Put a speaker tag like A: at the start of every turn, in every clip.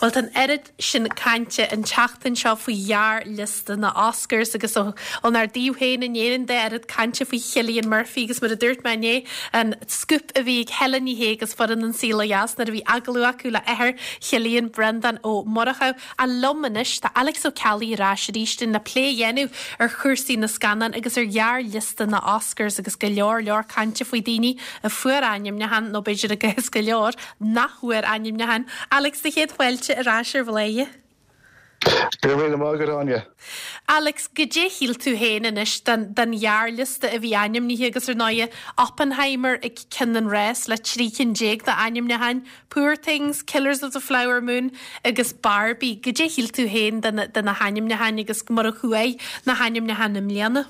A: Bhuel, tá an oiread sin cainte an tseachtain seo faoi ghearrliosta na Oscars agus ónár dtaobh féin in Éirinn de, oiread cainte faoi Chillian Murphy agus mar a dúirt mé inné, an scúp a bhí ag Helen Ní Shé agus foireann An Saol Ó Dheas nuair a bhí agallamh acu le athair Chillian, Breandán Ó Murchú. Ach liom anois tá Alex Ó Ceallaigh ar ais arís linn le plé a dhéanamh ar chúrsaí na scannán agus ar ghearrliosta na Oscars agus go leor leor cainte faoi daoine a fuair ainmniúchán nó b'fhéidir i gcás go leor nach bhfuair ainmniúchán. Alex, do chéad fáilte ar ais ar Bhladhaire.
B: Go raibh míle maith agat, Áine.
A: Alex, goidé a shíl tú féin anois den, den ghearrliosta a bhí ainmnithe agus ar ndóighe Oppenheimer ag ceann an rás le 13 cinn d'ainmniúcháin, Poor Things, Killers of the Flower Moon agus Barbie. Goidé a shíl tú féin de na, de na hainmniúcháin agus mar a chuaigh na hainmniúcháin i mbliana?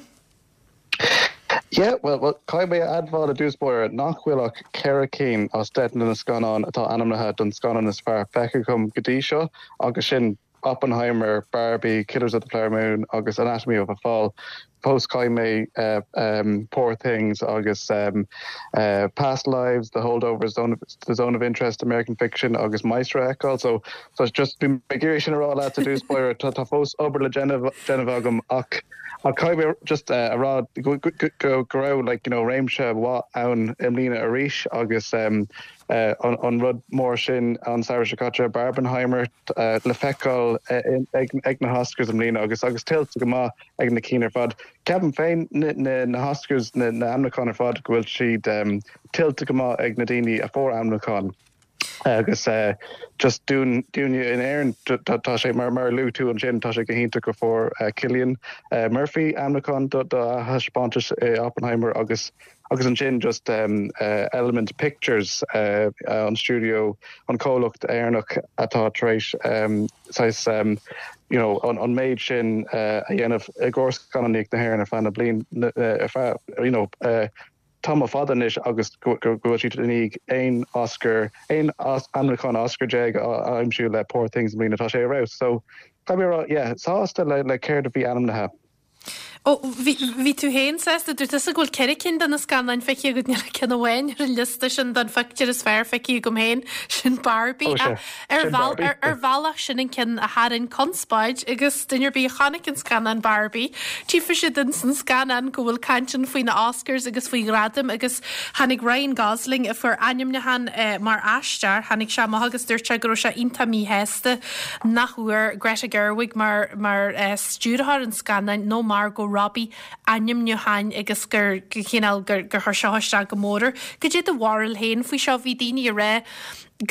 B: Yeah, well, well, caithfidh mé a admháil i dtús báire nach bhfuil ach ceithre cinn as 10 de na scannáin atá ainmnithe don scannán is fearr feicthe agam go dtí seo, agus sin Oppenheimer, Barbie, Killers of the Flower Moon agus Anatomy of a Fall. Fós caithfidh mé um, Poor Things agus um, uh, Past Lives, The Holdovers, Zone of, The Zone of Interest, American Fiction agus Maestro a fheiceáil. So, so just bhí mé ag iarraidh sin a rá leat i dtús báire, tá, tá fós obair le déanamh, déanamh agam ach Ach caithfidh mé just a rá go raibh like you know réimse mhaith ann i mbliana arís agus an rud mór sin an samhradh seo caite, Barbenheimer, le feiceáil ag na hOscars i mbliana agus agus tuillte go maith ag na cinn ar fad. Ceapaim féin na hOscars, na hainmniúcháin ar fad go bhfuil siad tuillte go maith ag na daoine a fuair ainmniúchán. Agus just dúinn, dúinne in Éirinn, tá sé, mar a luaigh tú ansin, tá sé go hiontach go fuair Cillian Murphy ainmniúchán do a thaispeántas i Oppenheimer agus agus ansin just Element Pictures, an stiúideo, an comhlacht Éireannach atá tar éis saghas you know an méid sin a dhéanamh i gcomhair scannánaíocht na hÉireann ar feadh na bliain, ar feadh you know tamall fada anois agus go bhfuil siad i ndiaidh aon Oscar, aon ainmniúchán Oscar déag a aimsiú le Poor Things i mbliana, tá sé ar fheabhas. So, caithfidh mé a rá, yeah, sásta le le céard a bhí ainmnithe.
A: Ó, bhí, bhí tú féin sásta, dúirt tusa go bhfuil ceithre cinn de na scannáin feicthe agat, níl ach ceann amháin ar an liosta sin don phictiúr is fearr feicthe agam féin, sin Barbie. Ó, sea, Ar sin Barbie. ar, ar bhealach sin an ceann a tharraing conspóid agus duine ar bith a chonaic an scannán Barbie, tchífidh siad ins an scannán go bhfuil caint ann faoi na Oscars agus faoi ghradaim agus tháinig Ryan Gosling a fuair ainmniúchán mar aisteoir, tháinig sé amach agus dúirt sé go raibh sé iontach míshásta nach bhfuair Greta Gerwig mar mar stiúrthóir an scannáin nó Margot Robbie ainmniúcháin agus gur chineál gur gur chuir seo isteach go mór air. Goidé do bharúil féin faoi seo? Bhí daoine ag rá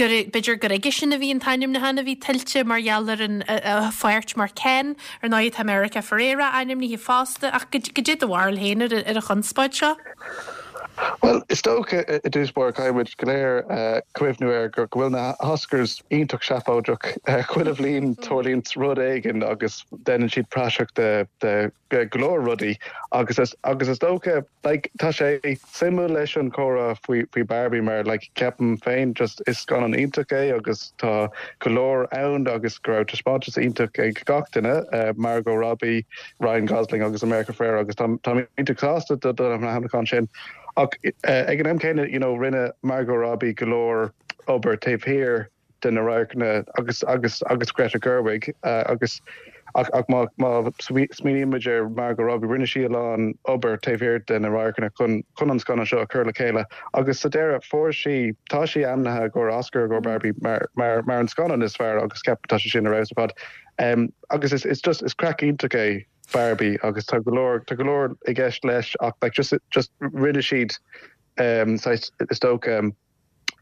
A: gur, b'fhéidir gur aige sin a bhí an t-ainmniúchán a bhí tuillte mar gheall ar an, a pháirt mar Ken. Ar ndóigh tá America Ferrera ainmnithe fosta ach goidé do bharúil féin ar an chonspóid seo?
B: Bhuel, is dócha i dtús báire caithfidh muid go léir cuimhniú air go bhfuil na hOscars iontach seafóideach. Chuile bhliain tarlaíonn rud éigin agus déanann siad praiseach de go leor rudaí agus agus is dócha like tá sé suimiúil leis an chomhrá faoi faoi Barbie mar like ceapaim féin just is scannán iontach é agus tá go leor ann agus go raibh taispeántas iontach ag gach duine Margot Robbie, Ryan Gosling agus America Ferrera agus tá táim iontach sásta do do na hainmniúcháin sin ach ag an am céanna you know rinne Margot Robbie go leor obair taobh thiar de na radharcanna agus agus agus Greta Gerwig agus ach ach má má smaoiníonn muid ar Margot Robbie rinne sí a lán obair taobh thiar de na radharcanna chun chun an scannán seo a chur le chéile agus sa deireadh fuair sí tá sí ainmnithe i gcomhair Oscar i gcomhair Barbie mar mar mar an scannán is fearr agus ceapaim tá sé sin ar fheabhas ar fad um, agus is is just is craic iontach é Barbie agus tá go leor tá go leor i gceist leis ach like just just rinne siad um, saghas is dócha um,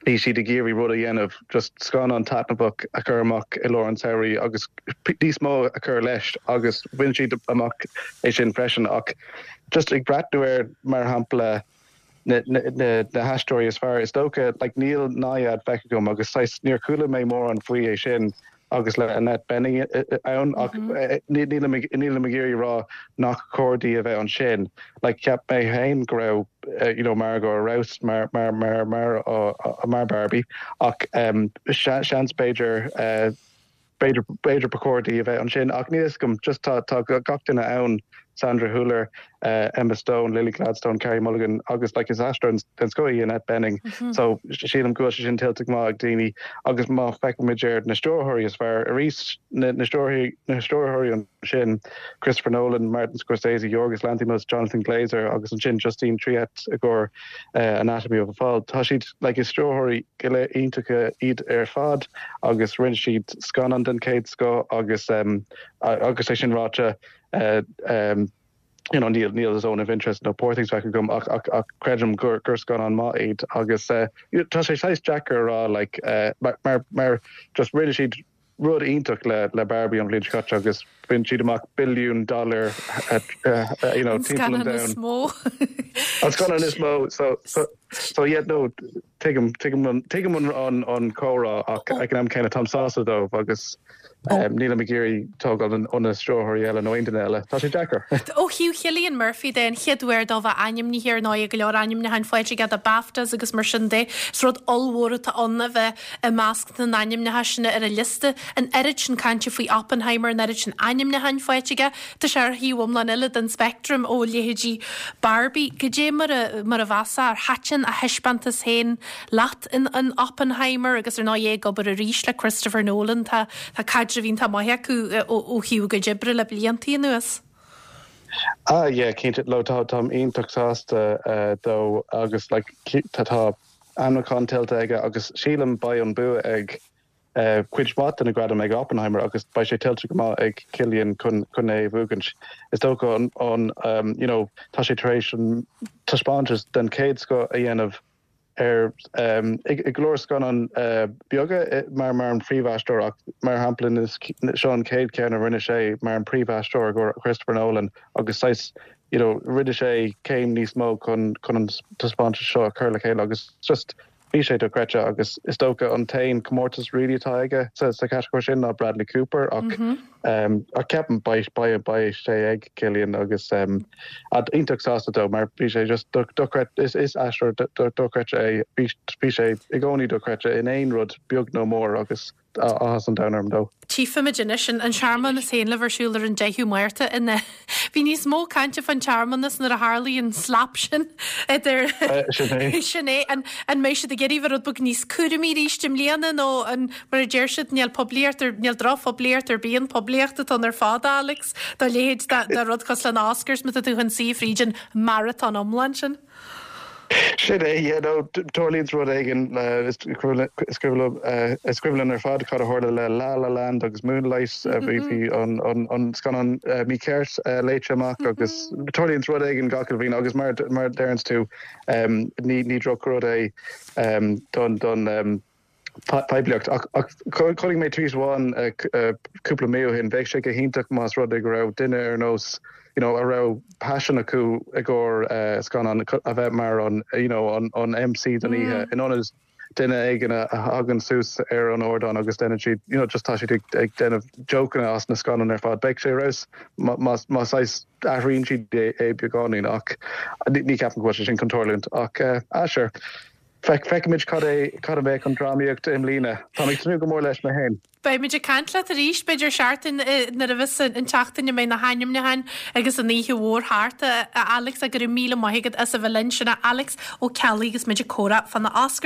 B: Bhí siad ag iarraidh rud a dhéanamh, just scannán taitneamhach a chur amach i lár an tsamhraidh agus níos mó a chur leis agus bhain siad amach é sin freisin ach just ag breathnú ar, mar shampla, na na haisteoirí is fearr, is dócha, like níl Nyad feicthe agam agus saghas níor chuala mé mórán faoi é sin agus le Annette Bening ann ach nílim ag nílim ag iarraidh rá nach cóir di a bheith ansin. Like cheap mé féin go raibh you know Margot ar fheabhas mar mar mar mar mar Barbie ach seans b'fhéidir b'fhéidir b'fhéidir ba chóir di a bheith ansin ach níl a fhios agam just tá tá gach duine ann. Sandra Hüller, Emma Stone, Lily Gladstone, Carey Mulligan agus like is aisteoir den scoth í Annette Bening. So sílim go bhfuil sé sin tuillte go maith ag daoine agus má feicimid ar na stiúrthóirí is fearr arís na na stiúrthóirí ansin Christopher Nolan, Martin Scorsese, Yorgos Lanthimos, Jonathan Glazer agus ansin Justine Triet i gcomhair Anatomy of a Fall. Tá siad like is stiúrthóirí go léir iontacha iad ar fad agus rinne siad scannán den chéad scoth agus agus é sin ráite you know níl níl Zone of Interest nó Poor Things feicthe agam ach ach ach creidim gur gur scannán maith iad agus tá sé saghas deacair a rá like mar mar mar just rinne siad rud iontach le le Barbie an bhliain seo caite agus bhain siad amach billiún dollar you know
A: timpeall an domhain. An scannán is mó.
B: An scannán is mó so so so yeah no tuigim tuigim an tuigim an an an comhrá ach ag an am céanna táim sásta dóibh agus Nílim ag iarraidh tógáil ó na stiúrthóirí eile nó aon duine eile. Tá sé deacair.
A: Ó thaobh Chillian Murphy de, an chéad uair dó bheith ainmnithe ar ndóigh, go leor ainmniúcháin faighte aige do BAFTAs agus mar sin de. Is rud ollmhór atá ann a bheith i measc na n-ainmneacha sin ar an liosta. An oiread sin cainte faoi Oppenheimer, an oiread sin ainmniúcháin faighte aige. Tá sé ar thaobh iomlán eile den speictream ó leithéidí Barbie. Goidé mar a mar a mheasfá ar thaitin a thaispeántas féin leat? in Oppenheimer agus ar ndóigh é ag obair arís le Christopher Nolan, tá tá caidreamh iontach maith acu ó thaobh a gcuid oibre le blianta anuas.
B: Ah yeah, cinnte, no tá táim iontach sásta dó agus like tá tá ainmniúchán tuillte aige agus sílim beidh an bua ag cuid mhaith de na gradaim ag Oppenheimer agus beidh sé tuillte go maith ag Cillian chun chun é a bhuachaint. Is dócha an an you know tá sé tar éis an taispeántas den chéad scoth a dhéanamh ar i go leor scannán beaga mar mar an phríomhaisteoir ach mar shampla seo an chéad cheann a rinne sé mar an príomhaisteoir i gcomhair Christopher Nolan agus saghas you know rinne sé céim níos mó chun chun an taispeántas seo a chur le chéile agus just bhí sé dochreidte agus is dócha an t-aon comórtas really atá aige sa sa chatagóir sin ná Bradley Cooper ach Ach ceapaim beidh beidh beidh sé ag Cillian agus iontach sásta dó mar bhí sé just dochreidte is is aisteoir dochreidte é bhí bhí sé i gcónaí dochreidte in aon rud beag nó mór agus áthas an domhain orm dó.
A: Tchífimid anois an searmanas féin le bheith ar siúl ar an 10ú Márta in Bhí níos mó cainte fán tsearmanas nuair a tharlaigh an slap sin idir
B: Sin é.
A: Sin é. An an mbeidh siad ag iarraidh bheith rud beag níos cúramaí arís i mbliana nó an mar a deir siad níl poiblíocht ar níl drochphoiblíocht ar bith an poiblíocht atá ann ar fad Alex dá leithéid de de rud cosúil le na Oscars má tá tú chun suí fríd an marathon iomlán sin.
B: Sin é, yeah, no, tarlaíonn rud éigin is cuimhin linn ar fad cad a tharla le La La Land agus Moonlight, bhí bhí an an scannán mícheart léite amach agus tarlaíonn rud éigin gach uile bhliain agus mar mar a deireanns tú ní ní drochrud é don don poiblíocht. Ach chonaic mé tweet amháin cúpla mí ó shin, bheadh sé go hiontach más rud é go raibh duine ar nós you know a raibh paisean acu i gcomhair scannán a bheith mar an you know an MC don oíche in ionad duine éigin a thagann suas ar an ardán agus déanann siad you know just tá siad ag déanamh jokeanna as na scannáin ar fad. Bheadh sé ar fheabhas má má saghas athraíonn siad é beagáinín ach ní ceapaim go bhfuil sé sin chun tarlúint ach ah sure. Feicfimid cad é cad a bheadh an drámaíocht i mbliana. Táim ag tnúth go mór leis mé féin.
A: Beimid ag caint leat arís, b'fhéidir seachtain nuair a bheas an tseachtain a mbeidh na hainmniúcháin agus an oíche mhór thart, a Alex, go raibh míle maith agat as a bheith linn. Sin é Alex Ó Ceallaigh agus muid ag comhrá fá na Oscars.